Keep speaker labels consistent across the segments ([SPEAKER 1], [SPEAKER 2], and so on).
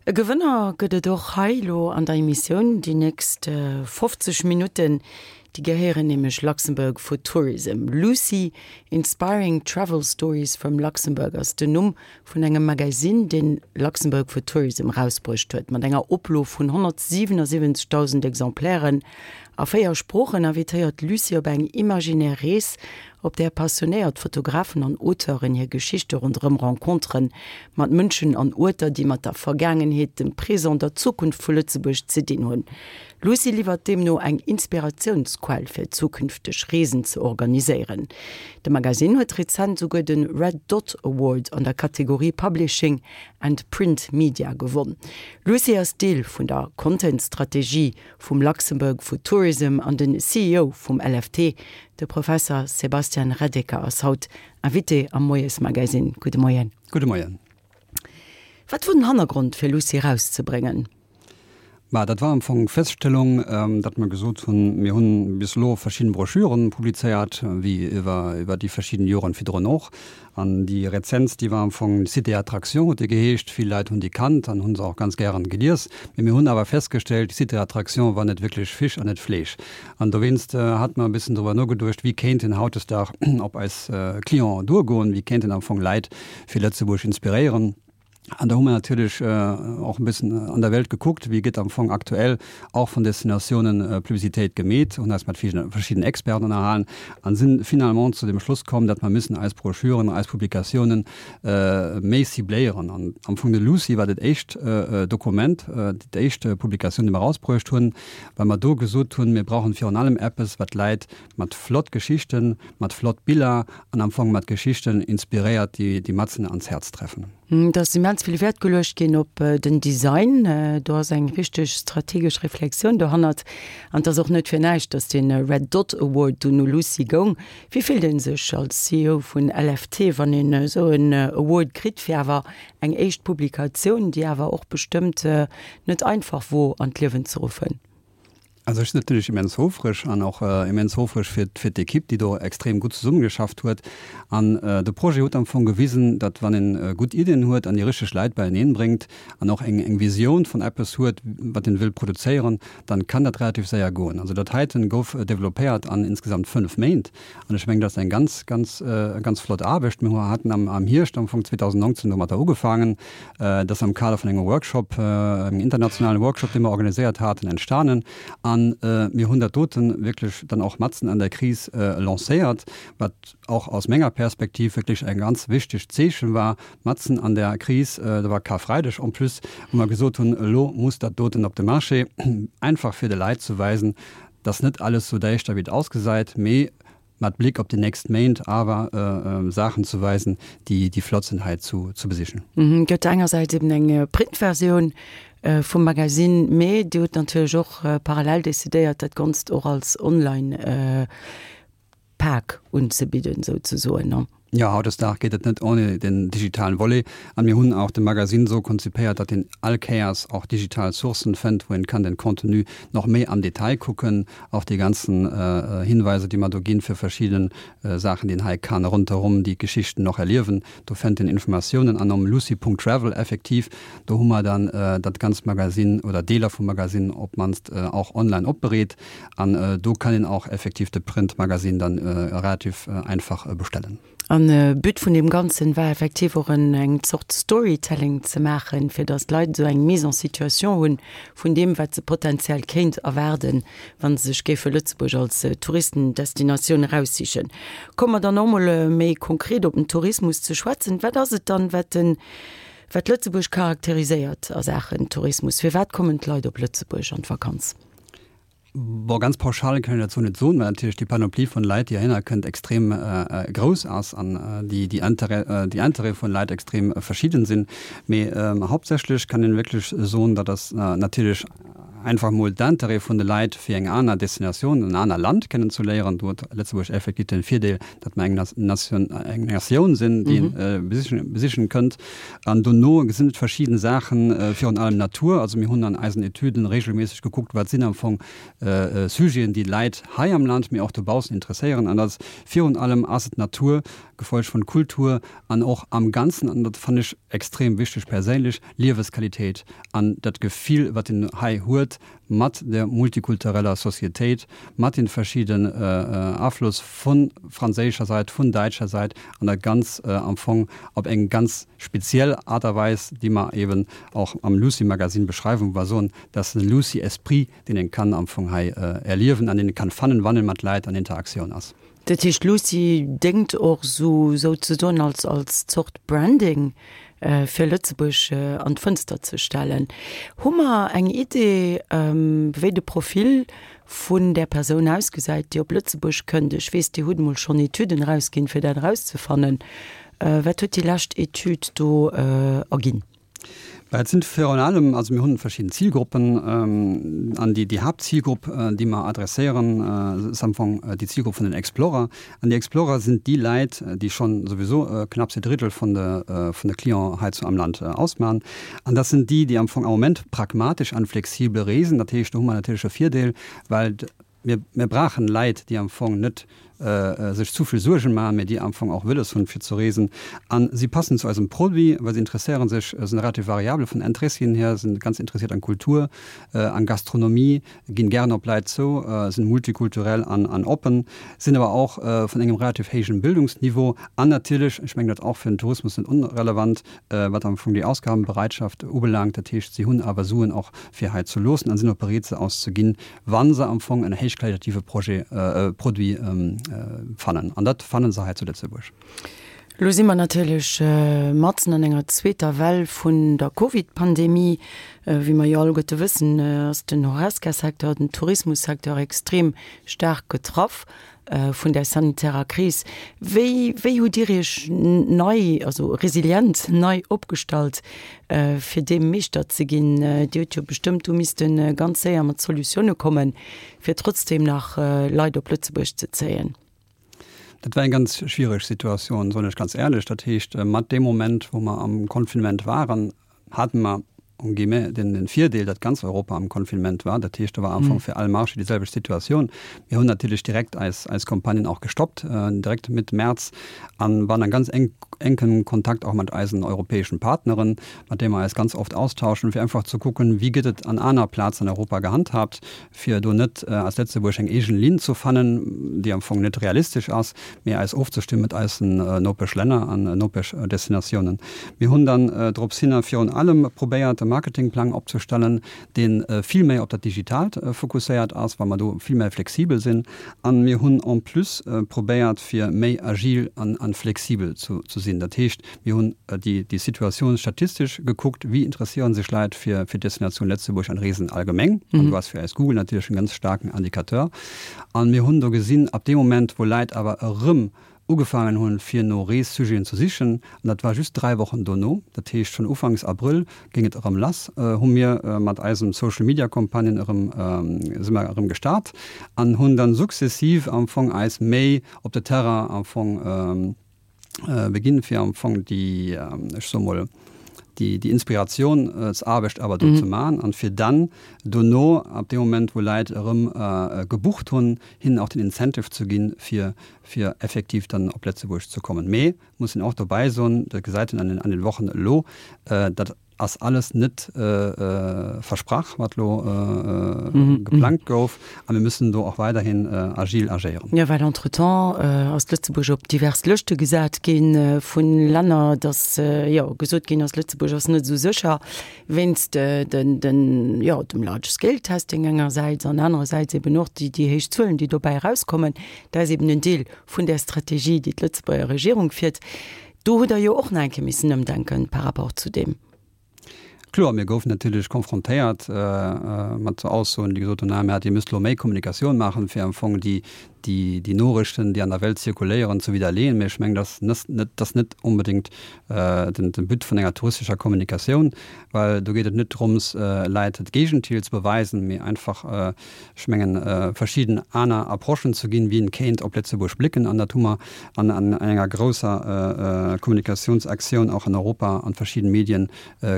[SPEAKER 1] E Gewënner gëtt et och hei elo an der Emissioun. Déi nächst 50 Minutten, déi gehéieren nämlech Luxembourg for Tourism. Lucy, Inspiring Travel Stories from Luxembourg ass den Numm vun engem Magazine, deen Luxembourg for Tourism erausbruecht huet. Mat enger Oplo vun 177.000 Exemplairen a 4 Sproochen invitéiert d'Lucy op eng imaginär Rees, op där passionéiert Fotografen an Auteuren hir Geschichte ronderëm Renconteren mat Mënschen an Uerter, déi mat der Vergaangenheet, dem Présent, der Zukunft vu Lëtzebuerg ze dinn hunn. Lucy liwwert deemno eng Inspiratiounsquell fir zukünfteg Reesen ze organiséieren. De Magasinn huet rezent souguer de Red Dot Award an der Kategorie Publishing and Print Media gewonn. Lucy ass Deel vun der Content-Strategie vum Luxembourg for Tourism an den CEO vum LFT, de Professer Sebastian Reddeker ass haut Invité am Moiesmagazine. Gudde Moien.
[SPEAKER 2] Gudde Moien.
[SPEAKER 1] Wat wor den Hannergrond fir Lucy erauszebréngen?
[SPEAKER 2] Ma dat war am Fong d'Feststellung, datt mer gesot hunn, mir hunn bis elo verschidden Broschüren publizéiert, wéi iwwer iwwer déi verschidden Joren virdrun och. An déi rezentst, déi war am Fong Cité Attraction huet déi geheescht. Vill Leit hunn déi kannt an hu se och ganz gären gelies. Mee mir hunn awer festgestellt, Cité Attraction war net wierklech Fisch an net Fleesch. An dowéinst hate mer e bëssen driwwer nogeduecht, wéi kéinten hautdesdag op eis Clienten duergoen, wéi kéinten am Fong Leit fir Lëtzebuerg inspiréieren. An da hu mer natierlech och e bëssen an der Welt gekuckt, wéi gëtt am Fong aktuell och vun Destinatiounen Publicitéit gemeet, hunn eis mat verschiddenen Experten ënnerhalen an sinn finalement zu dem Schluss komm, datt mer müssen eis Broschüren, eis Publikatiounen méi cibléieren. An am Fong de Lucy war dat éischt Dokument, déi éischt Publikatioun, déi mer erausbruecht hunn, well mer do gesot hunn, mir brauchen virun allem eppes, wat d'Läit mat flott Geschichten, mat flott Biller an am Fong mat Geschichten inspiréiert, déi déi matzen ans Häerz treffen.
[SPEAKER 1] Et ass immens vill Wäert geluecht ginn op den Design. Do ass eng richteg strategesch Reflexioun dohannert. An et ass och net fir näischt, datt dee Red Dot Award dunn u Lucy goung. Wéi fillt ee sech als CEO vun LFT, wann een esou en Award kritt fir awer eng éischt Publikatioun, déi awer och bestëmmt net einfach wor an d'Liewen ze ruffen?
[SPEAKER 2] Also ech sinn natierlech immens houfreg an och immens houfreg fir fir d'Ekipp, déi do extrem gutt zesummegeschafft huet. An de Projet huet am Fong gewisen, datt wann een gutt Iddien huet an déi richteg Leit beieneen bréngt an och eng eng Visioun vun eppes huet, wat een wëll produzéieren, dann kann dat relativ séier goen. Also dat heiten gouf developpéiert an insgesamt 5 Méint an ech mengen, dat ass eng ganz, ganz, ganz flott Aarbecht. Mir haten am am Hierscht am Fong 2019 domatter ugefaangen. Dat ass am Kader vun engem Workshop, engem internationalen Workshop, dee mer organiséiert haten, entstanen. A mir hunn dat dote wierklech dann och matzen an der Kris lancéiert, wat och aus menger Perspektiv wierklech e ganz wichtegt Zeechen war, matzen an der Kris, dat war Karfreideg en plus, wou mer gesot hunn, elo muss dat doten op de Marché, einfach fir de Leit ze weisen, dass net alles sou däischter wéi et ausgesäit, mee mat Blick op déi nächst Méint awer Saachen ze weisen, déi déi flott sinn hei zu ze besichen.
[SPEAKER 1] Et gëtt engersäits eben eng Printversioun vum Magasinn, mee Dir hutt natierlech och parallel decidéiert, dat Ganzt och als Online Pak unzebidden, souzesoen.
[SPEAKER 2] Jo, hautdesdaags geet et net ohne den digitalen Volet. An mir hunn och de Magasinn esou konzipéiert, datt een all Kéiers och digital Sourcen fënnt, wou een kann den Contenu nach méi am Detail kucken, och déi ganzen Hinweiser, déi mer do ginn fir verschidden Saachen, déi een hei kann ronderëm déi Geschichten och erliewen. Do fënnt een Informatiounen. An um lucy.travel effektiv, do hu mer dann dat ganzt Magasinn oder Deeler vum Magasinn op d'mannst och online opbereet. An do kann een och effektiv de Print-Magazine dann relativ einfach bestellen.
[SPEAKER 1] An But vun deem Ganzen war effektiv och en eng Zort Storytelling ze maachen, fir datt d'Leit esou eng Mise en situation hunn vun deem, wat se potenziell kéint erwaarden, wa se sech géife Lëtzebuerg als Touristendestinatioun eraussichen. Komme mer dann och mol méi konkret op den Tourismus ze schwätzen. Wat ass et dann, wat den, wat Lëtzebuerg charakteriséiert a Saachen Tourismus? Firwat kommen d'Leit op Lëtzebuerg an d'Vakanz?
[SPEAKER 2] Bon, ganz pauschal kann ech dat sou net soen, well natierlech déi Panoplie vun Leit, déi heihinner kënnt, extrem grouss ass an déi déi Intérêt déi Intérêt vun Leit extrem verschidden sinn. Mee hauptsächlech kann een wierklech soen, dat ass natierlech einfach mol d'Intérêt vun de Leit fir eng aner Destinatioun, en aner Land kennen ze léieren. Do huet Lëtzebuerg effektiv den Virdeel, datt mer eng Nation eng Natioun sinn, déi een besichen besichen kënnt. An dono sinn et verschidden Saachen, virun allem Natur. Also mir hunn an eisen Etüden regelméisseg gekuckt, wat sinn am Fong Sujeten, déi d'Leit hei am Land, mee och dobaussen interesséieren. An dat ass virun allem ass et d'Natur. Gefolgt vun Kultur an och am Ganzen, an dat fannen ech extrem wichteg perséinlech, Liewesqualitéit an dat Gefill wat een hei huet mat der multikultureller Societéit, mat den verschidden Afloss vun franséischer Sait, vun däitscher Sait an dat ganz am Fong op eng ganz speziell Art a Weis, déi mer eben och am Lucy Magazine beschreiwen, wou mer soen, dat ass den Lucy Esprit, deen een kann am Fong hei erliewen an deen een kann fannen, wann een mat Läit an Interaktioun ass.
[SPEAKER 1] Dat heescht, Lucy déngt och sou souzesoen als als Zort Branding fir Lëtzebuerg an d'Fënster ze stellen. Hu mer eng Idee, wéi de Profil vun där Persoun ausgesäit, déi op Lëtzebuerg kënnt? Ech weess, Dir hutt emol schonn Etüden erausginn, fir dat erauszefannen. Wat huet déi lescht Etüd do erginn?
[SPEAKER 2] Bah, et sinn virun allem, also mir hunn verschidden Zilgruppen an déi, déi Haaptzilgrupp, déi mer adresséieren, ass am Fong déi Zilgrupp vun den Explorer. An déi Explorer sinn déi Läit, déi schonn souwisou knapps e Drittel vun de, vun de Clienten hei zu am Land ausmachen. An dat sinn déi, déi am Fong am Moment pragmatesch an flexibel reesen. Dat heescht, do hu mer natierlech e Virdeel, well Mir, mir brauchen Leit, déi am Fong net sech zu vill Suergen maachen, mä déi am Fong och wëlles hunn, fir ze reesen. A si passen zu eisem Produit, well si interesséiere sech, sinn relativ variabel vun den Interessien hier, sinn ganz interessiert an Kultur, an Gastronomie, ginn gären op Leit zou, sinn multikulturell an, an oppen, sinn awer och vun engem relativ héijen Bildungsniveau an natierlech, ech mengen dat och fir den Tourismus net onrelevant, wat am Fong déi Ausgabenbereitschaft ubelaangt. Dat heescht, si hunn awer Suen och fir hei ze loossen an sinn och bereet se auszeginn, wa se am Fong en héichqualitative Projet, Produit fannen. An dat fanne se hei zu Lëtzebuerg.
[SPEAKER 1] Elo si mer natierlech matzen an enger zweeter Well vun der Covid-Pandemie. Wéi mer jo alleguerte wëssen, ass den Horesca-Secteur, den Tourismus-Secteur extrem staark getraff vun där sanitärer Kris. Wéi, wéi hutt Dir Iech nei, also resilient nei opgestallt, fir deem Meeschter ze ginn? Dir hutt jo bestëmmt do misste ganz séier mat Solutioune kommen, fir trotzdeem nach Leit op Lëtzebuerg ze zéien.
[SPEAKER 2] Dat war eng ganz schwiereg Situatioun, soen ech ganz éierlech. Dat heescht, mat deem Moment, wou mer am Confinement waren, hate mer en guillemets den, den Virdeel, datt ganz Europa am Confinement war. Dat heescht, do war am Fong fir all Marché déi selwecht Situatioun. Mir hunn natierlech direkt eis, eis Campagnen och gestoppt, direkt Mëtt März, a waren a ganz enk, enkem Kontakt och mat eisen europäeschen Partneren, mat deene mer eis ganz oft austauschen, fir einfach ze kucken, wéi gëtt et an aner Plazen an Europa gehandhaabt, fir do net als Lëtzebuerg eng eegen Linn ze fannen, déi am Fong net realistesch ass, mee eis ofzestëmmen mat eisen Nopeschlänner an Nopeschdestinatiounen. Mir hunn dann drops hinner virun allem probéiert, e Marketingplang opzestellen, dee vill méi op dat Digitaalt fokusséiert ass, well mer do vill méi flexibel sinn. A mir hunn en plus probéiert, fir méi agil an flexibel ze sinn. Dat heescht, Mir hunn déi Situatioun statistesch gekuckt, wéi interesséiere sech Leit fir d'Destinatioun Lëtzebuerg an Reesen allgemeng. An do ass fir eis Google natierlech en ganz staarken Indicateur. An mir hunn do gesinn, ab deem Moment, wou Leit awer erëm ugefaangen hunn, fir no Reessujeten ze sichen, an dat war just 3 Wochen dono, dat heescht schonn ufanks Abrëll géing et erëm lass, hu mir mat eisem Social Media Campagnen erëm, si mer erëm gestart an hunn dann sukzessiv am Fong eis méi op de Terrain am Fong, beginn fir am Fong déi, ech soe mol, déi, déi Inspirationsarbecht awer do ze maachen an fir dann dono, ab deem Moment wou Leit erëm gebucht hunn, hinnen och den Incentive ze ginn, fir, fir effektiv dann op Lëtzebuerg ze kommen. Mee muss een och dobäi soen, dat gesäit een an den, an den Wochen elo, dat ass alles net versprach, wat elo geplangt gouf, a mir müssen do och weiderhin agil agéieren.
[SPEAKER 1] Jo, well entretemps ass Lëtzebuerg op divers Lëschte gesat gi vu Länner, datt jo gesot ginn ass, Lëtzebuerg ass net esou sécher wéinst den, den, jo, dem Large Scale Testing engersäits an anerersäits eben och déi, déi héich Zuelen, déi dobäi erauskommen. Dat ass eben en Deel vun där Strategie, déi d'Lëtzebuerger Regierung fiert. Do hutt Der jo och nach eng Kéier missen ëmdenken par rapport zu deem.
[SPEAKER 2] Kloer, mir goufen natierlech konfrontéiert mat sou Aussoen, déi gesot hunn, ah mä Dir müsst elo méi Kommunikatioun maachen, fir am Fong déi, déi, déi Norichten, déi an der Welt zirkuléieren, ze widderleeën. Mä ech mengen, dat ass net, dat ass net onbedéngt den, den But vun enger touristescher Kommunikatioun, well do geet et net drëms, Leit d'Géigentil ze beweisen, mee einfach, ech mengen, verschidden aner Approchen ze ginn, wéi een kéint op Lëtzebuerg blicken. An dat hu mer an enger grousser Kommunikatiounsaktioun och an Europa an verschidden Medien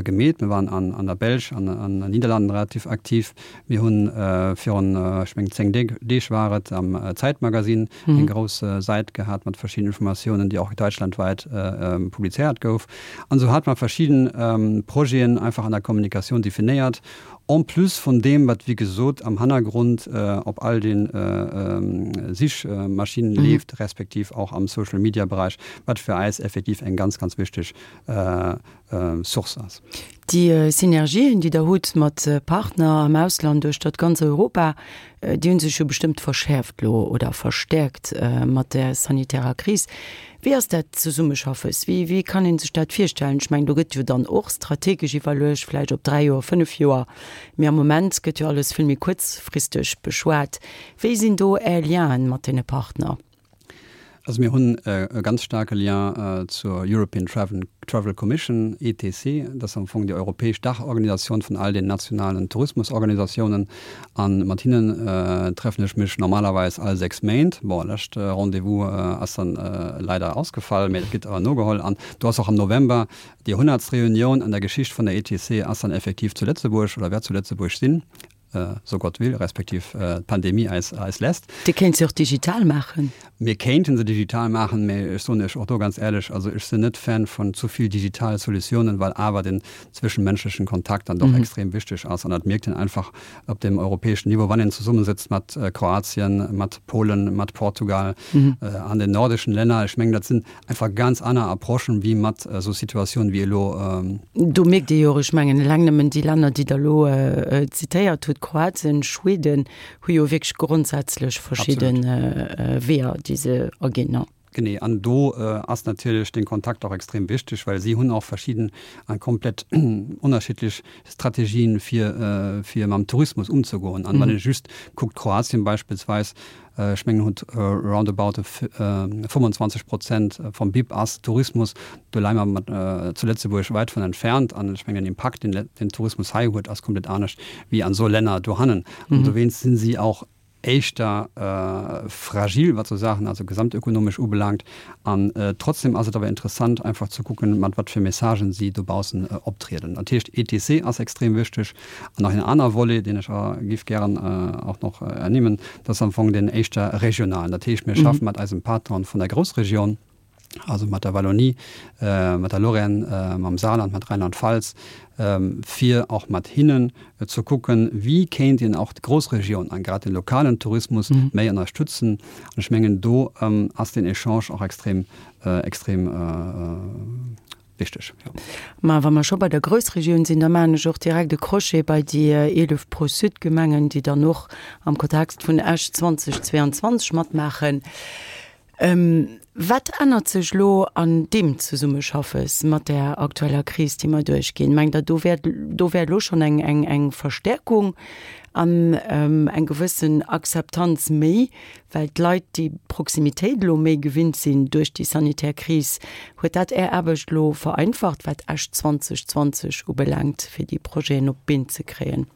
[SPEAKER 2] gemeet. Mir waren. waren an der Belsch an an den Niederlanden relativ aktiv. Mir hunn virun, ech mengen 10 Deeg war et, am Zeitmagazin eng grouss Säit gehat mat verschiddenen Informatiounen, déi och deutschlandweit publizéiert gouf. An esou hate mer verschidden Projeten einfach an der Kommunikatioun definéiert, en plus vun deem, wat wéi gesot am Hannergrond op all de Sichmaschinen leeft, respektiv och am Social-Media-Beräich, wat fir eis effektiv eng ganz, ganz wichteg Source ass.
[SPEAKER 1] Déi Synergien, déi Der hutt mat Partner am Ausland duerch dat ganz Europa, déi hu sech jo bestëmmt verschäerft elo oder verstäerkt mat där sanitärer Kris. Wéi ass dat Zesummeschaffes? Wéi, wéi kann ee sech dat virstellen? Ech mengen, do gëtt jo dann och strategesch iwwerluecht, vläicht op dräi Joer, fënnef Joer, mee am Moment gëtt jo alles vill méi kuerzfristeg beschwat. Wéi sinn do Är Lienen mat deene Partner?
[SPEAKER 2] Also mir hunn e ganz staarke Lien zur European Travel Commission, ETC. Dat ass am Fong déi europäesch Daachorganisatioun vun all den nationalen Tourismusorganisatiounen. A mat hinnen treffen ech mech normalerweis all 6 Méint. Bon, lescht Rendez-vous ass dann leider ausgefall, mä dat gëtt awer nogeholl. An do ass och am November déi hunnertst Reunioun an der Geschicht vun der ETC ass dann effektiv zu Lëtzebuerg oder wäert zu Lëtzebuerg sinn. so Gott will, respektiv d'Pandemie eis, eis lässt.
[SPEAKER 1] Dir kéint se och digital maachen.
[SPEAKER 2] Mir kéinten se digital maachen, mä ech soen Iech och do ganz éierlech, also ech sinn net Fan vun zu vill digitale Solutiounen, well awer den zwëschenmenschlechen Kontakt dann doch extrem wichteg ass. An dat mierkt een einfach op dem europäeschen Niveau, wann een zesummesëtzt mat Kroatien, mat Polen, mat Portugal, an den nordischen Länner. Ech mengen, dat sinn einfach ganz aner Approchen wéi mat esou Situatiounen wéi elo.
[SPEAKER 1] Do mierkt ee jo och, ech mengen eleng nëmmen déi Länner, déi Der elo zitéiert hutt, Kroatien, Schweden, hu jo wierklech grondsätzlech verschidde Weeër, déi se aginn.
[SPEAKER 2] Genee, an do ass natierlech den Kontakt och extrem wichteg, well si hunn och verschidden a komplett ënnerschiddlech Strategien, fir fir mam Tourismus ëmzegoen. An wann ee just kuckt, Kroatien beispillsweis, Ech mengen huet roundabout 25 Prozent vum BIP ass Tourismus. Do leie mer mat zu Lëtzebuerg wäit vun entfernt. An ech mengen den Impakt, deen den Tourismus hei huet, ass komplett anescht wéi an esou Länner dohannen. An dowéinst sinn si och éischter fragil, wat esou Saachen, also gesamtökonomesch ubelaangt. An trotzdem ass et awer interessant einfach ze kucken, mat wat fir Messagen si dobaussen optrieden. Dat heescht ETC ass extrem wichteg. An nach een aner Volet, deen ech giff gären och nach ernimmen, dat ass am Fong deen éischter regionalen. Dat heescht, mir schaffe mat eisem Patron vun der Groussregioun, also mat der Wallonie, mat der Lorraine, mam Saarland, mat Rheinland-Pfalz, fir och mat hinnen ze kucken, wéi kéint een och d'Groussregioun a grad de lokalen Tourismus méi ënnerstützen. An ech mengen, do ass deen Echange och extrem, extrem wichteg, jo.
[SPEAKER 1] Ma wa mer scho bei der Groussregioun sinn, da maachen ech och direkt e Crochet bei déi 11 Pro-Sud-Gemengen, déi dann och am Kontext vun Esch 2022 matmaachen. Wat ännert sech elo an deem Zesummeschaffes mat där aktueller Kris, déi mer duerchginn? Mengt Der, do wär, do wär elo schonn eng, eng, eng Verstärkung an eng gewëssen Akzeptanz méi, Well d'Leit déi Proximitéit elo méi gewinnt sinn duerch déi sanitär Kris, huet dat Är Aarbecht elo vereinfacht, wat Esch 2020 ubelaangt, fir déi Projeten op d'Been ze kréien?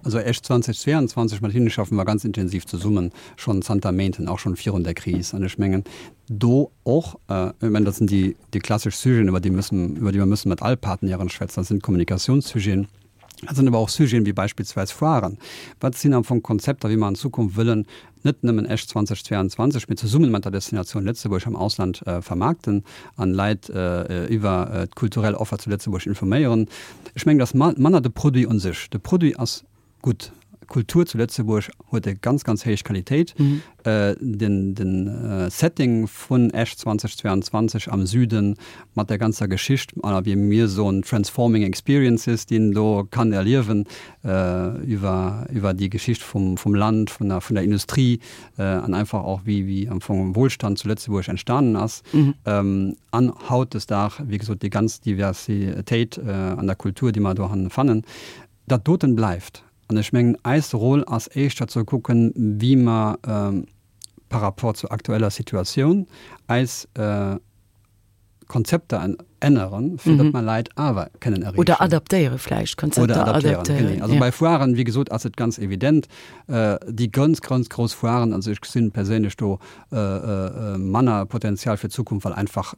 [SPEAKER 2] Also Esch 2022, mat hinne schaffe mer ganz intensiv zesummen, schonn zanter Méinten, och schonn virun der Kris. An ech mengen do och, ech mengen dat sinn déi déi klassesch Sujeten, iwwer déi müssen, iwwer déi mer müssen mat all Partenairen schwätzen, dat sinn d'Kommunikatiounssujeten, Dat sinn awer och Sujeten wéi beispillsweis Foiren. Wat sinn am Fong Konzepter, wéi mer an Zukunft wëllen net nëmmen Esch 2022, mee zesummen mat der Destinatioun Lëtzebuerg am Ausland vermaarkten an Leit iwwer d'kulturell Offer zu Lëtzebuerg informéieren? Ech mengen, et ass manner de Produit un sech. De Produit ass gutt. Kultur zu Lëtzebuerg huet e ganz, ganz héich Qualitéit. Den, den Setting vun Esch 2022 am Süden mat der ganzer Geschicht, oder wéi mir soen, transforming experiences, déi een do kann erliewen iwwer, iwwer déi Geschicht vum, vum Land, vun der, vun der Industrie an einfach och wéi, wéi am Fong Wohlstand zu Lëtzebuerg entstanen ass. An hautdesdag, wéi gesot, déi ganz Diversitéit an der Kultur, déi mer dohannen fannen. Dat doten bleift. An ech mengen, eis Rôle ass éischter ze kucken, wéi mer par rapport zur aktueller Situatioun eis Konzepter änneren. änneren, fir datt mer Leit awer kënnen erreechen.
[SPEAKER 1] Oder adaptéiere vläicht,
[SPEAKER 2] Konzepter Oder adaptéieren, genee. Also bei Foiren, wéi gesot, ass et ganz evident, déi ganz, ganz grouss Foiren, also ech gesinn perséinlech do manner Potenzial fir d'Zukunft, well einfach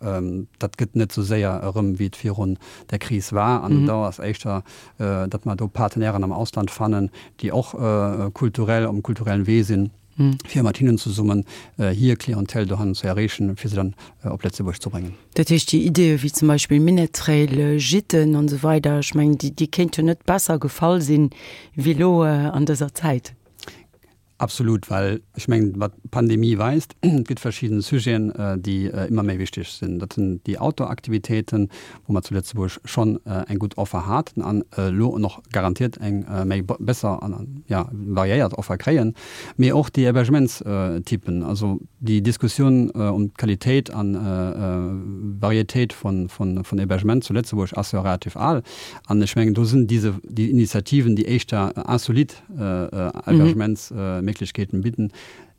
[SPEAKER 2] dat gëtt net esou séier erëm, wéi et virun der Kris war. An do ass éischter, datt mer do Partenairen am Ausland fannen, déi och kulturell, um kulturellen Wee sinn. fir mat hinnen zesummen hir Clientèle dohannen ze erreechen, fir se dann op Lëtzebuerg ze bréngen.
[SPEAKER 1] Dat heescht, déi Ideeë wéi zum Beispill Minett-Trail, Gîten an esou weider, ech mengen, déi, déi kéinte jo net besser gefall sinn, wéi elo an dëser Zäit.
[SPEAKER 2] Absolut, well ech mengen, wat d'Pandemie weist, et gëtt verschidden Sujeten, déi ëmmer méi wichteg sinn. Dat sinn déi Outdoor-Aktivitéiten, wou mer zu Lëtzebuerg schonn eng gutt Offer haten an elo och garantiert eng méi besser an, jo, variéiert Offer kréien, mee och déi Hébergementstypen, also déi Diskussioun ëm d'Qualitéit an Varietéit vun Hébergement zu Lëtzebuerg ass jo relativ al an ech mengen do sinn dise déi Initiativen, déi éischter insolite Hébergementsméiglechkeeten bidden,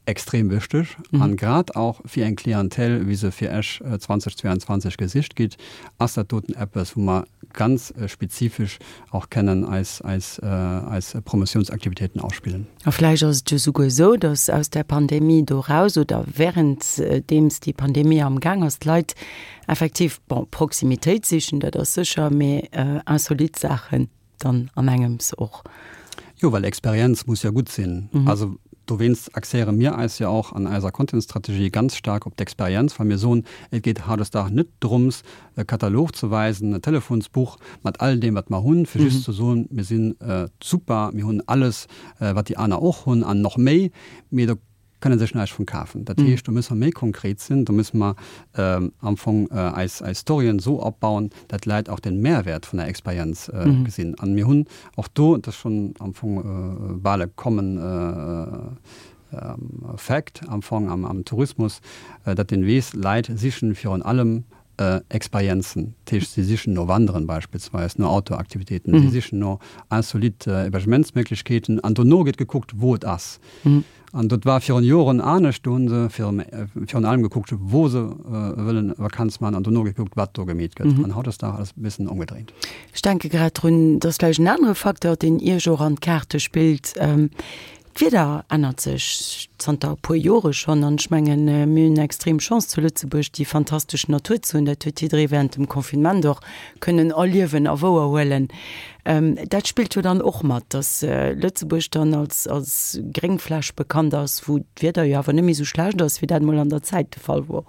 [SPEAKER 2] extrem wichteg an grad och fir eng Clientèle wéi se fir Esch 2022 gesicht gitt, ass dat doten eppes wou mer ganz spezifesch och kennen eis eis eis Promotiounsaktivitéiten ausspillen.
[SPEAKER 1] A vläicht ass et jo souguer esou, datt aus där Pandemie do raus oder währenddeems déi Pandemie am Gaang ass, d'Leit effektiv, bon, Proximitéit sichen, dat ass sécher, mee insolite Saachen dann an engems och.
[SPEAKER 2] Jo, well Experienz muss jo gutt sinn. Also dowéinst axéiere mir eis jo och an eiser Content-Strategie ganz staark op d'Experienz, well mir soen, et geet hautdesdaags net drëms, e Katalog ze weisen, e Telefonsbuch mat all deem, wat mer hunn, fir just ze soen, mir si super, mir hunn alles, wat déi aner och hunn an nach méi, mee do kënne sech näischt vun kafen. Dat heescht, do musse mer méi konkret sinn, do musse mer am Fong eis eis Storyen esou opbauen, dat d'Leit och den Mehrwert vun der Experienz gesinn. An mir hunn och do, dat ass schonn am Fong bal e common fact am Fong am Tourismus, dat een weess, Leit sichen virun allem Experienzen, dat heescht si sichen no Wanderen beispillsweis, no Outdoor-Aktivitéiten, si sichen no insolite Hébergementsméiglechkeeten an dono gëtt gekuckt, wou et ass. An dat war virun Joren anescht, do hu se virun allem gekuckt, wou se wëllen Vakanz maachen an dono gekuckt, wat do gemeet gëtt. An hautdesdaags ass et e bëssen ëmgedréint.
[SPEAKER 1] Ech denke grad drun, et ass vläicht en anere Facteur, deen Iech och an d'Kaarte spillt, D'Wieder ännert sech zanter e puer Jore schonn an ech mengen, mir hunn extrem Chance zu Lëtzebuerg déi fantastesch Natur ze hunn. Dat huet jidderee während dem Confinement och kënnen erliewen a wouerhuelen. Dat spillt jo dann och mat, dass Lëtzebuerg dann als als Gréngfläch bekannt ass, wou d'Wieder jo awer net méi esou schlecht ass, wéi dat mol an der Zäit de Fall wor.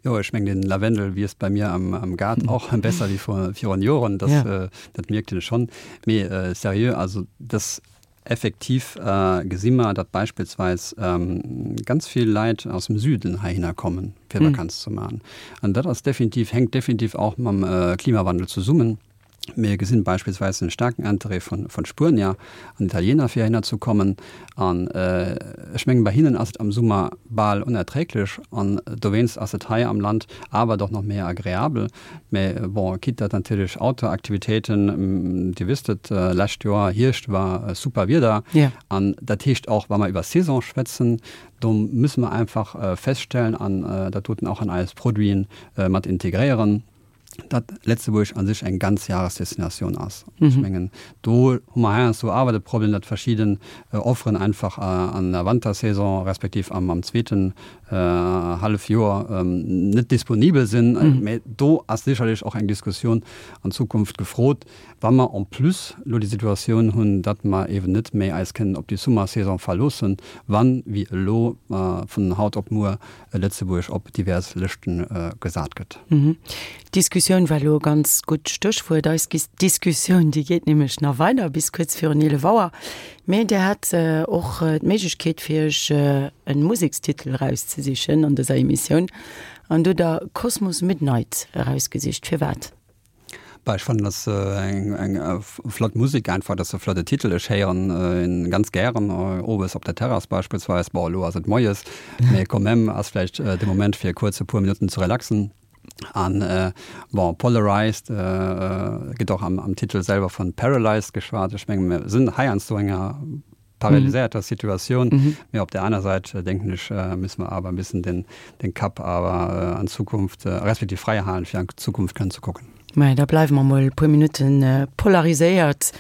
[SPEAKER 2] Jo, ech mengen, den Lavendel wiisst bei mir am, am Gaart och besser wéi virun Joren, dat, dat mierkt een schonn. Mee seriö, also dass Effektiv gesi mer, datt beispillsweis ganz vill Leit aus dem Süden heihinner kommen, fir Vakanz ze maachen. An dat ass definitiv, hänkt definitiv och mam Klimawandel zesummen. Mir gesinn beispillsweis en staarken Interêt vu Spuenier an Italiener, fir heihinner ze kommen. An ech mengen, bei hinnen ass et am Summer bal onerträglech an dowéinst ass et hei am Land awer doch nach méi agreabel. Mä bon, quitte datt natierlech Outdoor-Aktivitéiten, Dir wësst et, lescht Joer Hierscht war super Wieder. An dat heescht och, wa mer iwwer Saison schwätzen, do musse mer einfach feststellen an dat doten och an eis Produiten mat integréieren, datt Lëtzebuerg a sech eng Ganzjahresdestinatioun ass. Ech mengen, do hu mer heiansdo awer de Problem, datt verschidden Offeren einfach an der Wantersaison respektiv am zweeten Hallefjoer net disponibel sinn. Mä do ass sécherlech och eng Diskussioun an Zukunft gefrot, wa mer en plus elo déi Situatioun hunn, datt mer eeben net méi eis kënnen op déi Summersaison verloossen, wann, wéi elo, vun haut op muer Lëtzebuerg op divers Lëschte gesat gëtt.
[SPEAKER 1] D'Diskussioun war elo e ganz gutt Stéchwuert. Eis Diskussioun, déi geet nämlech nach weider bis kuerz virun 11 Auer. Mee Dir hat och d'Méiglechkeet fir Iech e Musekstitel erauszesichen an dëser Emissioun an do der Cosmos Midnight erausgesicht. Firwat?
[SPEAKER 2] Bah, ech fannen dat ass eng eng flott Musek einfach, dat ass e flotte Titel. Ech héieren en ganz gären owes op der Terrass beispillsweis. Bon, elo ass et moies, mee quand même ass vläicht de Moment fir kuerz e puer Minutten ze relaxen. An bon, polarized gëtt och am Titel selwer vun paralyzed geschwat. Ech menge mir sinn heiansdo enger. paralyséierter Situatioun. Mee op där aner Säit, denken ech, müsse mer awer e bëssen den, den Kapp awer an d'Zukunft, respektiv fräi halen, fir an d'Zukunft kënnen ze kucken.
[SPEAKER 1] Maja, da bleiwe mer mol e puer Minutten polariséiert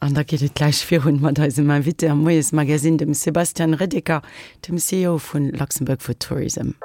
[SPEAKER 1] an da geet et gläich virun mat eisem Invité am Moiesmagazine, dem Sebastian Reddeker, dem CEO vun Luxembourg for Tourism.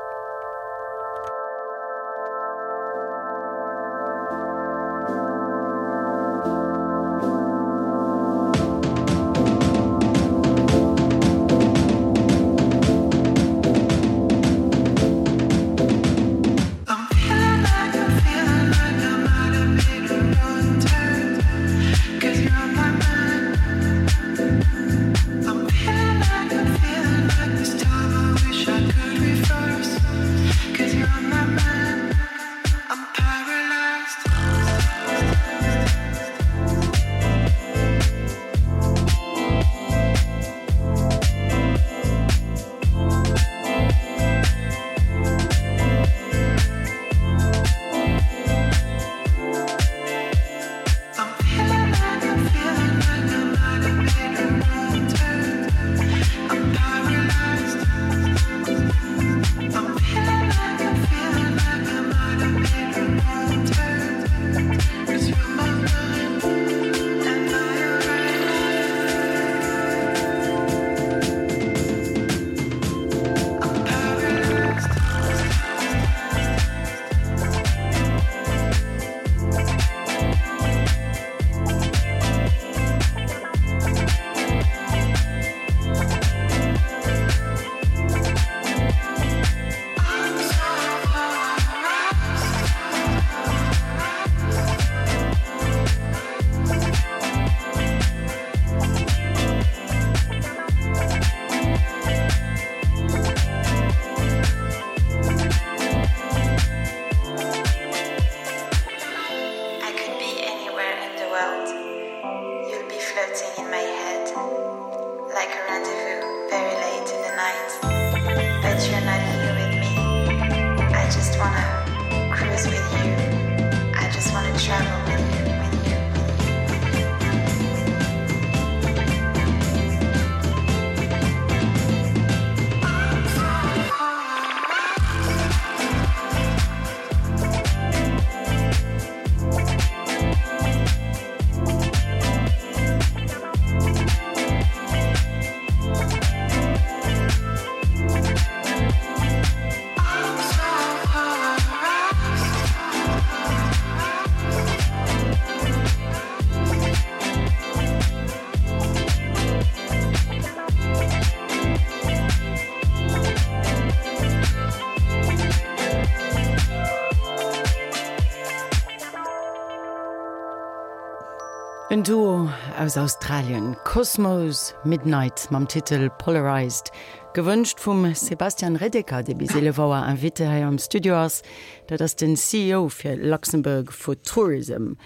[SPEAKER 1] En Duo aus Australien, Cosmo's Midnight mam Titel Polarized, gewënscht vum Sebastian Redeker, dee bis 11 Auer Invité hei am Studio ass. Dat ass den CEO fir Luxembourg for Tourism.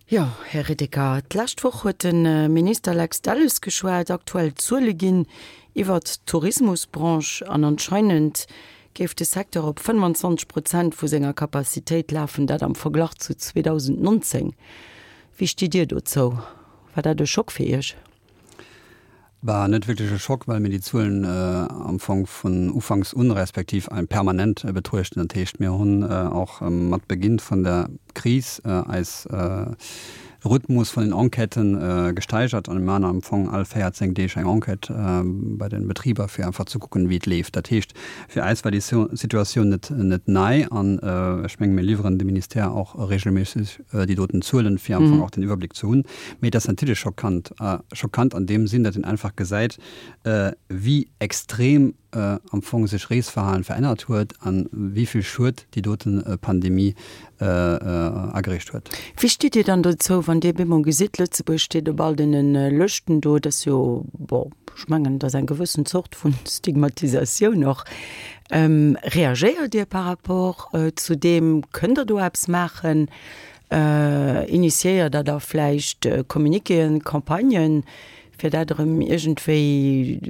[SPEAKER 1] Jo, Här Redeker, d'lescht Woch huet de Minister Lex Delles geschwat, aktuell Zuele ginn iwwert d'Tourismusbranche an anscheinend géif de Secteur op 25 Prozent vu senger Capacitéit lafen, dat am Verglach zu 2019. Wéi stitt Dir dozou? War dat e Schock fir Iech?
[SPEAKER 2] War net wierklech e Schock, well mir déi Zuelen am Fong vun ufanks un, respektiv permanent betruechten. Dat heescht, mir hunn och mat Beginn vun der Kris eis Rhythmus vun den Enquêten gesteigert an mir maachen am Fong all 14 Deeg eng Enquête bei den Betriber, fir einfach ze kucken, wéi et leeft. Dat heescht, fir eis war déi Situatioun net net nei an ech menge mir liwweren dem Ministère och regelméisseg déi doten Zuelen, fir am Fong och den Iwwerbléck ze hunn. Mee et ass natierlech schockant, schockant an deem Sinn, datt een einfach gesäit, wéi extrem am Fong sech Reesverhalen verännert huet an wéi vill Schued déi doten Pandemie ageriicht huet.
[SPEAKER 1] Wéi stitt Dir dann dozou, wann Dir bemol gesitt, Lëtzebuerg steet op all deene Lëschten do, dat ass jo, bon, ech mengen, dat ass eng gewëssen Zort vun Stigmatisatioun och. Reagéiert Dir par rapport zu deem? Kënnt Der do eppes maachen? Initiéiert Der da vläicht Communiquéen, Campagnen, fir dat erëm iergendwéi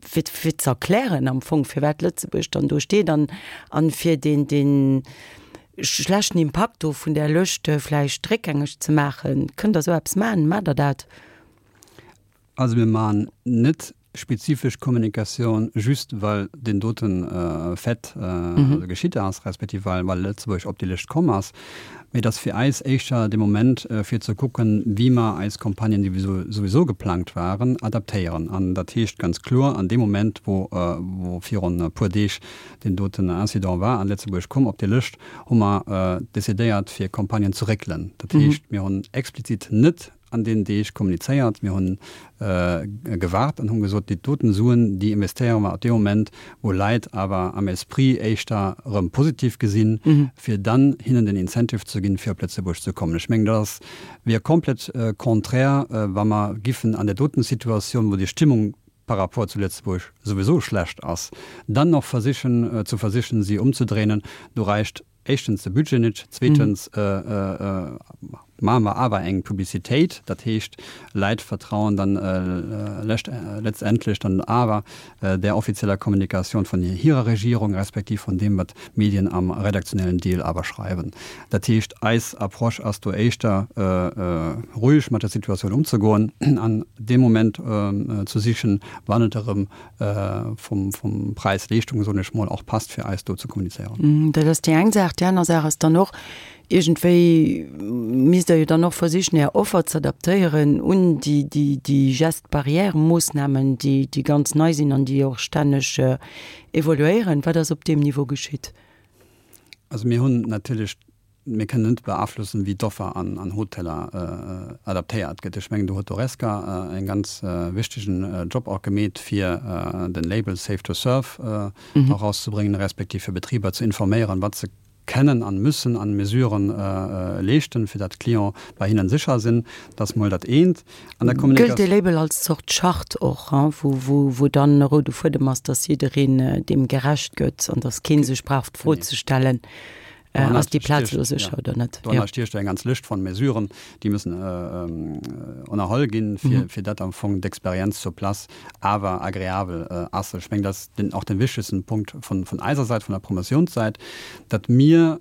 [SPEAKER 1] fir fir ze erklären am Fong, firwat Lëtzebuerg dann do steet an an fir deen dee schlechten Impakt do vun där Lëscht vläicht réckgängeg ze maachen? Kënnt Der esou eppes maachen? Maacht Der dat?
[SPEAKER 2] Also mir maachen net spezifesch Kommunikatioun just well deen doten Fait geschitt ass, respektiv well Lëtzebuerg op déi Lëscht komm ass, mee et ass fir eis éischter de Moment fir ze kucken, wéi mer eis Campagnen, déi souwisou geplangt waren, adaptéieren. An dat heescht ganz kloer, an deem Moment wou virun e puer Deeg deen doten Incident war an Lëtzebuerg komm op déi Lëscht, hu mer decidéiert fir Campagnen ze réckelen. Dat heescht, mir hunn explizit net an deenen Deeg kommunizéiert. Mir hunn gewaart an hunn gesot, déi doten Suen, déi investéiere mer ab deem Moment, wou Leit awer am Esprit éischter erëm positiv gesinn, fir dann hinnen den Incentive ze ginn, fir op Lëtzebuerg ze kommen. Ech mengen, dat ass, wier komplett contraire, wa mer giffen an där doten Situatioun, wou déi Stimmung par rapport zu Lëtzebuerg souwisou schlecht ass, dann nach versichen, ze versichen, si ëmzedréinen. Do reicht éischtens de Budget net, zweetens maache mer awer eng Publicitéit, dat heescht, Leit vertrauen dann letztendlech dann awer där offizieller Kommunikatioun vun hirer Regierung, respektiv vun deem, wat d'Medien am redaktionellen Deel awer schreiwen. Dat heescht, eis Approche ass do éischter roueg mat der Situatioun ëmzegoen an dee Moment ze sichen, wann et erëm vum, vum Präis-Leeschtung, soen ech mol, och passt fir eis do ze kommunizéieren.
[SPEAKER 1] Dat ass déi eng Saach. Déi aner Saach ass dann och, iergendwéi misst Der jo dann och versichen, Är Offer ze adaptéieren un déi, déi, déi Geste-barrière-Moossnamen, déi, déi ganz nei sinn an déi och stänneg evoluéieren. Wat ass op deem Niveau geschitt?
[SPEAKER 2] Also mir hunn natierlech Mir kënnen net beaflossen, wéi d'Offer an Hoteller adaptéiert gëtt. Ech mengen, do huet d'Horesca en ganz wichtegen Job och gemeet, fir den Label Safe to Serve erauszebréngen, respektiv fir Betriber ze informéieren, wat se kennen an müssen an Mesuren leeschten, fir dat d'Clienten bei hinnen sécher sinn. Dat ass mol dat eent.
[SPEAKER 1] An der Kommunikatioun. Gëllt dee Label als Zort Charte och, wou dann e roude Fuedem ass, dass jiddereen deem gerecht gëtt an dass kee sech brauch d'Fro ze stellen, Ass déi Plaz elo sécher oder net?
[SPEAKER 2] Doranner stiecht eng ganz Lëscht von Mesuren, déi müssen ënnerholl ginn, fir, fir dat am Fong d'Experienz sur place awer agreabel ass. Ech mengen, dat ass den, och den wichtegsten Punkt vun, vun eiser Säit, vun der Promotiounssäit, datt mir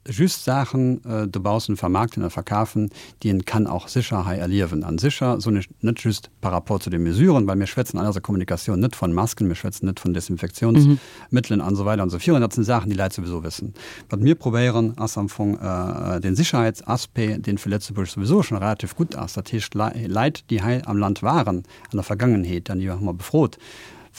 [SPEAKER 2] just Saachen dobaussen vermaarkten a verkafen, déi een kann och sécher hei erliewen. An sécher soen ech net just par rapport zu de Mesuren, well mir schwätzen an eiser Kommunikatioun net von Masken, mir schwätzen net vun Desinfektionsmëttelen an esou weider an esou virun. Dat sinn Saachen, déi Leit souwisou wëssen. Wat mir probéieren, ass am Fong den Sicherheitsaspect, deen fir Lëtzebuerg souwisou schon relativ gutt ass, dat heescht Leit, déi hei am Land waren an der Vergangenheet, an déi hu mer befrot,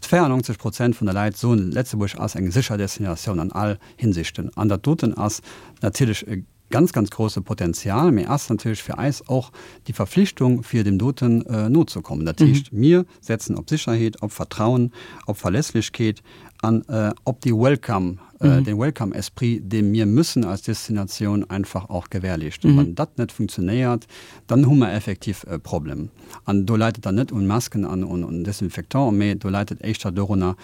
[SPEAKER 2] 94 Prozent vun de Leit soen, Lëtzebuerg ass eng sécher Destinatioun an all Hinsichten. An dat doten ass natierlech e ganz, ganz grosse Potenzial, mee ass natierlech fir eis och déi Verpflichtung, fir deem doten nozekommen. Dat heescht, mir setzen op Sicherheet, op Vertrauen, op Verlässlechkeet an op déi Welcome, dee Welcome-Esprit, dee mir müssen als Destinatioun einfach och gewährleeschten. Wann dat net funktionéiert, dann hu mer effektiv e Problem. An do läit et dann net un Masken an un Desinfectant, mee do läit et éischter dorunner,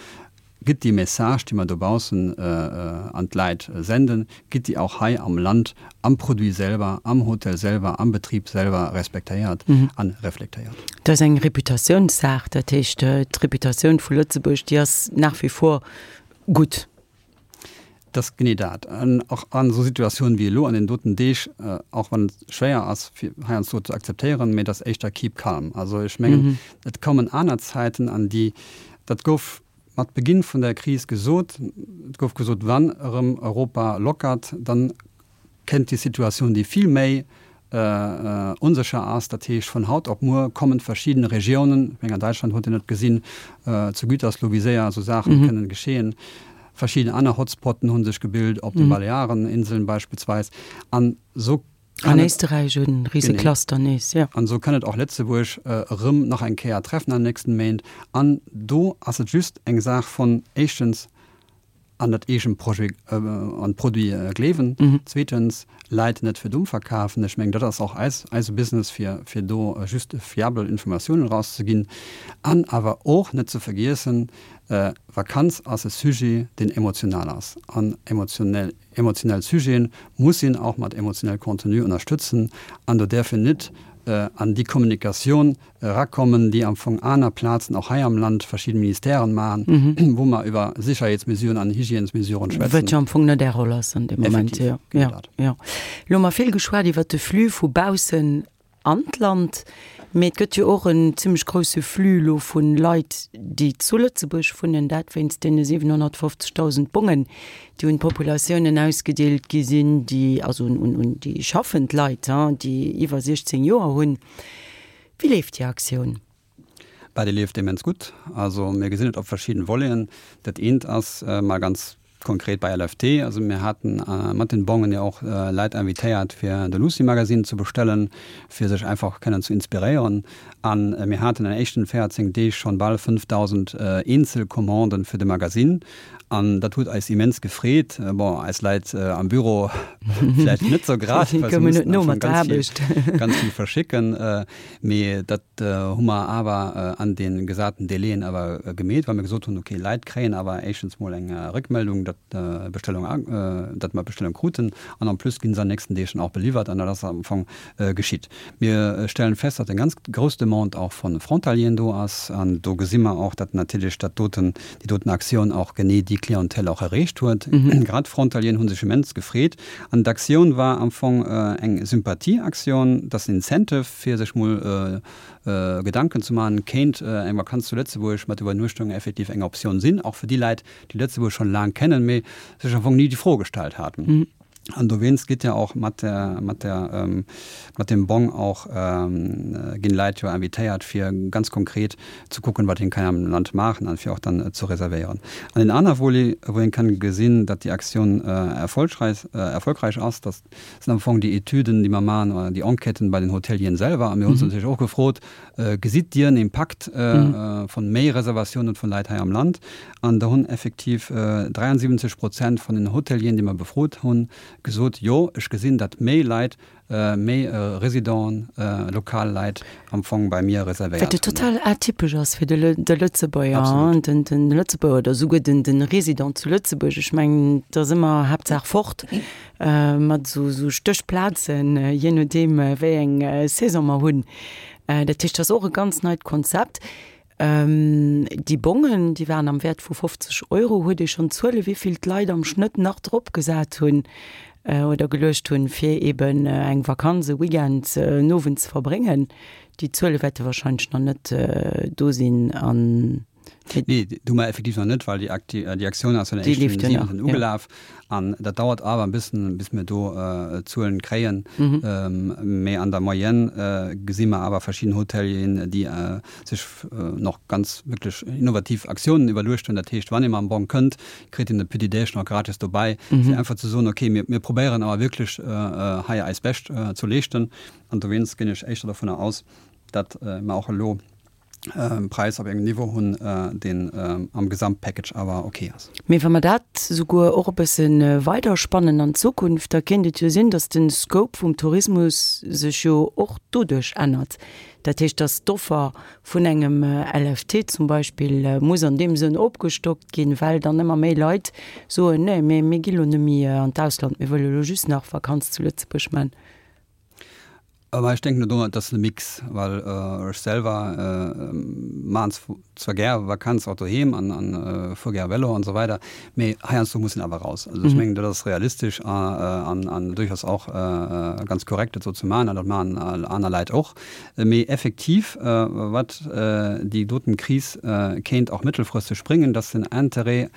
[SPEAKER 2] Gëtt déi Message, déi mer dobaussen an d'Läit senden, gëtt déi och hei am Land am Produit selwer, am Hotel selwer, am Betrib selwer respektéiert a reflektéiert?
[SPEAKER 1] Dat ass eng Reputatiounssaach. Dat heescht, d'Reputatioun vu Lëtzebuerg, déi ass nach wie vor gutt.
[SPEAKER 2] Dat ass genee dat. An och an esou Situatiounen wéi elo an deenen doten Deeg, och wann et schwéier ass fir heiansdo ze akzeptéieren, mee et ass éischter keep calm. Also ech mengen, et kommen aner Zäiten an déi, dat gouf mat Beginn vun der Kris gesot, et gouf gesot, wann erëm Europa lockert, dann kënnt déi Situatioun, déi vill méi onsécher ass. Dat heescht, vun haut op muer kommen verschidden Regiounen, ech mengen an Däitschland huet een et gesinn, zu Gütersloh, wéi séier esou Saachen kënnen geschehen, verschidden aner Hotspotten hu sech gebilt, op de Baleareninseln beispillsweis, an esou
[SPEAKER 1] An Éisterräich e rise Cluster nees, jo.
[SPEAKER 2] An esou kann et och Lëtzebuerg erëm nach eng Kéier treffen an den nächsten Méint. An do ass et just eng Saach von, éischtens, an dat eegent Projet, an d'Produit gleewen, zweetens, Leit net fir domm verkafen. Ech mengen, dat ass och eis, eise Business, fir, fir do just fiabel Informatiounen erauszeginn. An awer och net ze vergiessen, Vakanz ass e Sujet, deen emotional ass. An emotionell Emotionell Sujeten muss een och mat emotionell Contenu ënnerstëtzen an do däerf een net an déi Kommunikatioun erakommen, déi am Fong aner Plazen, och hei am Land, verschidden Ministèren maachen, wou mer iwwer Sicherheetsmesuren an Hygiènesmesuren schwätzen.
[SPEAKER 1] Wat jo am Fong net Är Roll ass an deem Moment.
[SPEAKER 2] Effektiv, genau dat.
[SPEAKER 1] Jo. Elo hu mer vill geschwat iwwert de Flux vu baussen. an d'Land, mee et gëtt jo och en zimmlech grousse Flux elo vu Leit, déi zu Lëtzebuerg wunnen, dat wéinst deene 750.000 Bongen, déi un d'Populatiounen ausgedeelt gi sinn, déi, also un, un déi schaffend Leit, déi iwwer 16 Joer hunn. Wéi leeft déi Aktioun?
[SPEAKER 2] Bah, déi leeft immens gutt. Also mir gesinn et op verschidden Voleten. Dat eent ass mol ganz konkret bei LFT. Also mir haten mat den Bongen jo och Leit invitéiert fir de Lucy Magazine ze bestellen, fir sech einfach kënnen ze inspiréieren. An mir haten an den éischten 14 Deeg schonn bal 5.000 eenzel Commanden fir de Magazine. An dat huet eis immens gefreet. Bon, eis Leit am Büro vläicht net sou grad, well se mussen am Fong ganz vill, ganz vill verschicken. Mee dat hu mer awer an de gesaten Délaiën awer gemeet, well mir gesot hunn, okay, Leit kréien awer éischtens mol eng Réckmeldung, datt d'Bestellung, datt mer d'Bestellung kruten an en plus gi se an den nächsten Deeg dann och beliwwert an dat ass am Fong geschitt. Mir stellen fest, datt eng ganz grouss Demande och vu Frontalieren do ass an do gesi mer och, datt natierlech dat doten, déi doten Aktioun och genee déi Clientèle och erreecht huet. Grad d'Frontalieren hu sech immens gefreet an d'Aktioun war am Fong eng Sympathieaktioun, dat ass en Incentive fir sech mol Gedanken ze maachen, kéint eng Vakanz zu Lëtzebuerg mat Iwwernuechtung effektiv eng Optioun sinn, och fir déi Leit, déi Lëtzebuerg schonn laang kennen, mee sech am Fong ni déi Fro gestallt haten. An dowéinst gitt ja och mat der, mat der, mat dem Bong och, ginn Leit jo invitéiert fir ganz konkret ze kucken, wat een kann am Land maachen an fir och dann ze reservéieren. An en aner Volet, wou een kann gesinn, datt déi Aktioun erfolgreich, erfolgreich ass, datt sinn am Fong déi Etüden, déi mer maachen, oder déi Enquêten bei den Hotelieren selwer. A mir hu se natierlech och gefrot, Gesitt Dir en Impakt von méi Reservatiounen vun Leit hei am Land? An do hunn effektiv 73 Prozent vun den Hotelieren, déi mer befrot hunn, gesot, Jo, ech gesinn, datt méi Leit, méi Residenten, lokal Leit am Fong bei mir reservéiert
[SPEAKER 1] hunn. Wat jo total atypesch ass fir de Lëtzebuerger, de Lëtzebuerger oder esouguer de Resident zu Lëtzebuerg. Ech mengen, et ass ëmmer Haaptsaach fort mat esou Stéchplazen, jee nodeem wéi eng Saison mer hunn. Dat heescht, dat ass och e ganz neit Konzept. Déi Bongen, déi waren am Wäert vu 50 Euro. Huet ee schonn Zuele wéi vill d'Leit am Schnëtt nach drop gesat hunn oder geluecht hunn, fir eben eng Vakanz, e Weekend, en Owend ze verbréngen? Déi Zuele wäerte wahrscheinlech nach net do sinn an.
[SPEAKER 2] Nee, déi hu mer effektiv nach net, well déi Aktioun ass jo
[SPEAKER 1] eréischt den 7.
[SPEAKER 2] ugelaf. An dat dauert awer e bëssen, bis mir do Zuelen kréien. Mee an der Moyenne gesi mer awer verschidden Hotelieren, déi sech nach ganz wierklech innovativ Aktiounen iwwerluecht hunn. Dat heescht, wann ee mam Bong kënnt, kritt een e Petit Déj nach gratis dobäi, fir einfach ze soen, okay, mir probéieren awer wierklech hei eist Bescht ze leeschten. An dowéinst ginn ech éischter dovunner aus, datt mer och elo Präis op engem Niveau hunn, deen am Gesamtpackage awer ok ass.
[SPEAKER 1] Mee wa mer dat souguer och e bësse weiderspannen an d'Zukunft, da kéint et jo sinn, datt de Scope vum Tourismus sech jo och doduerch ännert. Dat heescht, datt d'Offer vun engem LFT zum Beispill muss an deem Sënn opgestockt ginn, well dann ëmmer méi Leit soen, Nee, mir mir gi lo net méi an d'Ausland, mir wëlle lo just nach Vakanz zu Lëtzebuerg man.
[SPEAKER 2] Mä ech denken do, et ass e Mix, well ech selwer maachen zwar gär Vakanz och doheem an an fuer gär Vélo an esou weider, mee heiansdo muss een awer raus. Also ech mengen dat ass realistesch an an duerchaus och ganz korrekt dat esou ze maachen an dat maachen aner Leit och. Mee effektiv wat déi doten Kris kéint och mëttelfristeg bréngen, dass den Interêt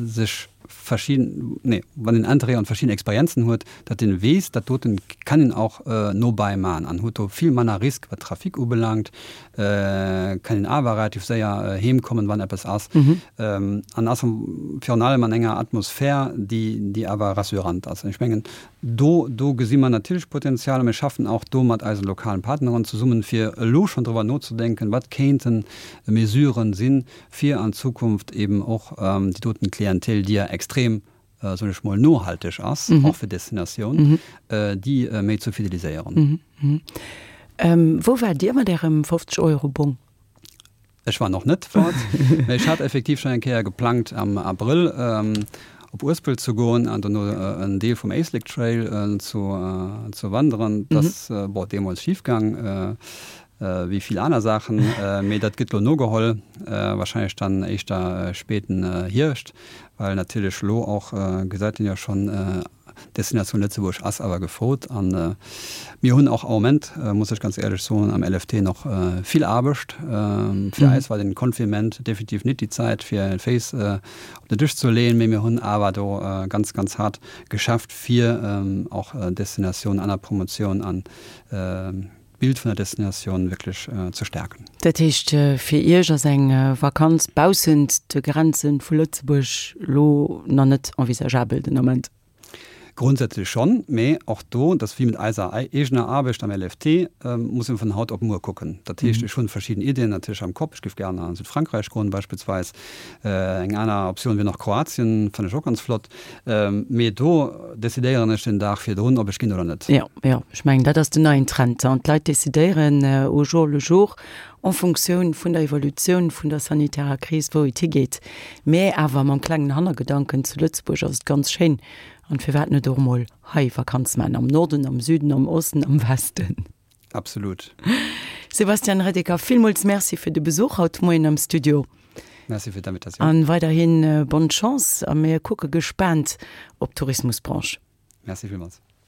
[SPEAKER 2] sech verschidden, nee, wann een Interêt an verschidden Experienzen huet, datt een weess, dat doten kann een och nobäi maachen an huet do vill manner Risk wat Trafic ubelaangt, kann een awer relativ séier heem kommen, wann eppes ass, an ass virun allem an enger Atmosphär, déi, déi awer rassurant ass. An ech mengen, do, do gesi mer natierlech Potenzial a mir schaffen och do mat eise lokalen Partneren zesummen, fir elo schonn driwwer nozedenken, wat kéinten Mesuren sinn, fir an Zukunft eben och déi doten Klientel, déi ja extrem, soen ech mol, nohalteg ass, och fir Destinatioun, déi méi ze fideliséieren.
[SPEAKER 1] Wou waart Dir mat Ärem 50 Euro Bong?
[SPEAKER 2] Ech war nach net fort, mä ech hat effektiv schonn eng Kéier geplangt am Abrëll op Uespelt ze goen an dono en Deel vum Éislek Trail ze wanderen. Dat ass, bon, deemools schif gaang. Wéi vill aner Saachen, mee dat gëtt lo nogeholl, wahrscheinlech dann éischter spéiten Hierscht, well natierlech lo och, gesäit een jo schonn. Destinatioun Lëtzebuerg ass awer gefrot an mir hunn och am Moment, muss ech ganz éierlech soen, am LFT nach vill Aarbecht. Fir eis war den Confinement definitiv nit déi Zäit fir d'Féiss op den Dësch ze leeën, mee mir hunn awer do ganz, ganz haart geschafft fir och Destinatioun an der Promotioun an d'Bild vun der Destinatioun wierklech ze
[SPEAKER 1] stärken. Dat heescht, fir Iech ass eng Vakanz baussent de Grenze vu Lëtzebuerg elo nach net envisageabel den Ament?
[SPEAKER 2] Grundsätzlech schonn, mee och do, dat ass wéi mat eiser eegener Aarbecht am LFT, muss een vun haut op muer kucken. Dat heescht, ech hunn verschidden Iddien natierlech am Kopp. Ech géif gären a Südfrankräich goen beispillsweis. Eng aner Optioun wier nach Kroatien, fannen ech och ganz flott. Mee do decidéieren ech den Dag virdrun, ob ech ginn oder net.
[SPEAKER 1] Jo, jo, ech mengen, dat ass den neien Trend. An d'Leit decidéieren au jour le jour en Funktioun vun der Evolutioun vun der sanitärer Kris, wou et higeet. Mä awer mam klengen Hannergedanken, zu Lëtzebuerg ass et ganz schéin an firwat net och emol hei Vakanz maachen, am Norden, am Süden, am Osten, am Westen.
[SPEAKER 2] Absolut.
[SPEAKER 1] Sebastian Redeker, villmools Merci fir de Besuch haut Moien am Studio.
[SPEAKER 2] Merci fir d'Invitatioun.
[SPEAKER 1] An weiderhin bonne Chance a mir kucke gespaant op d'Tourismusbranche.
[SPEAKER 2] Merci villmools.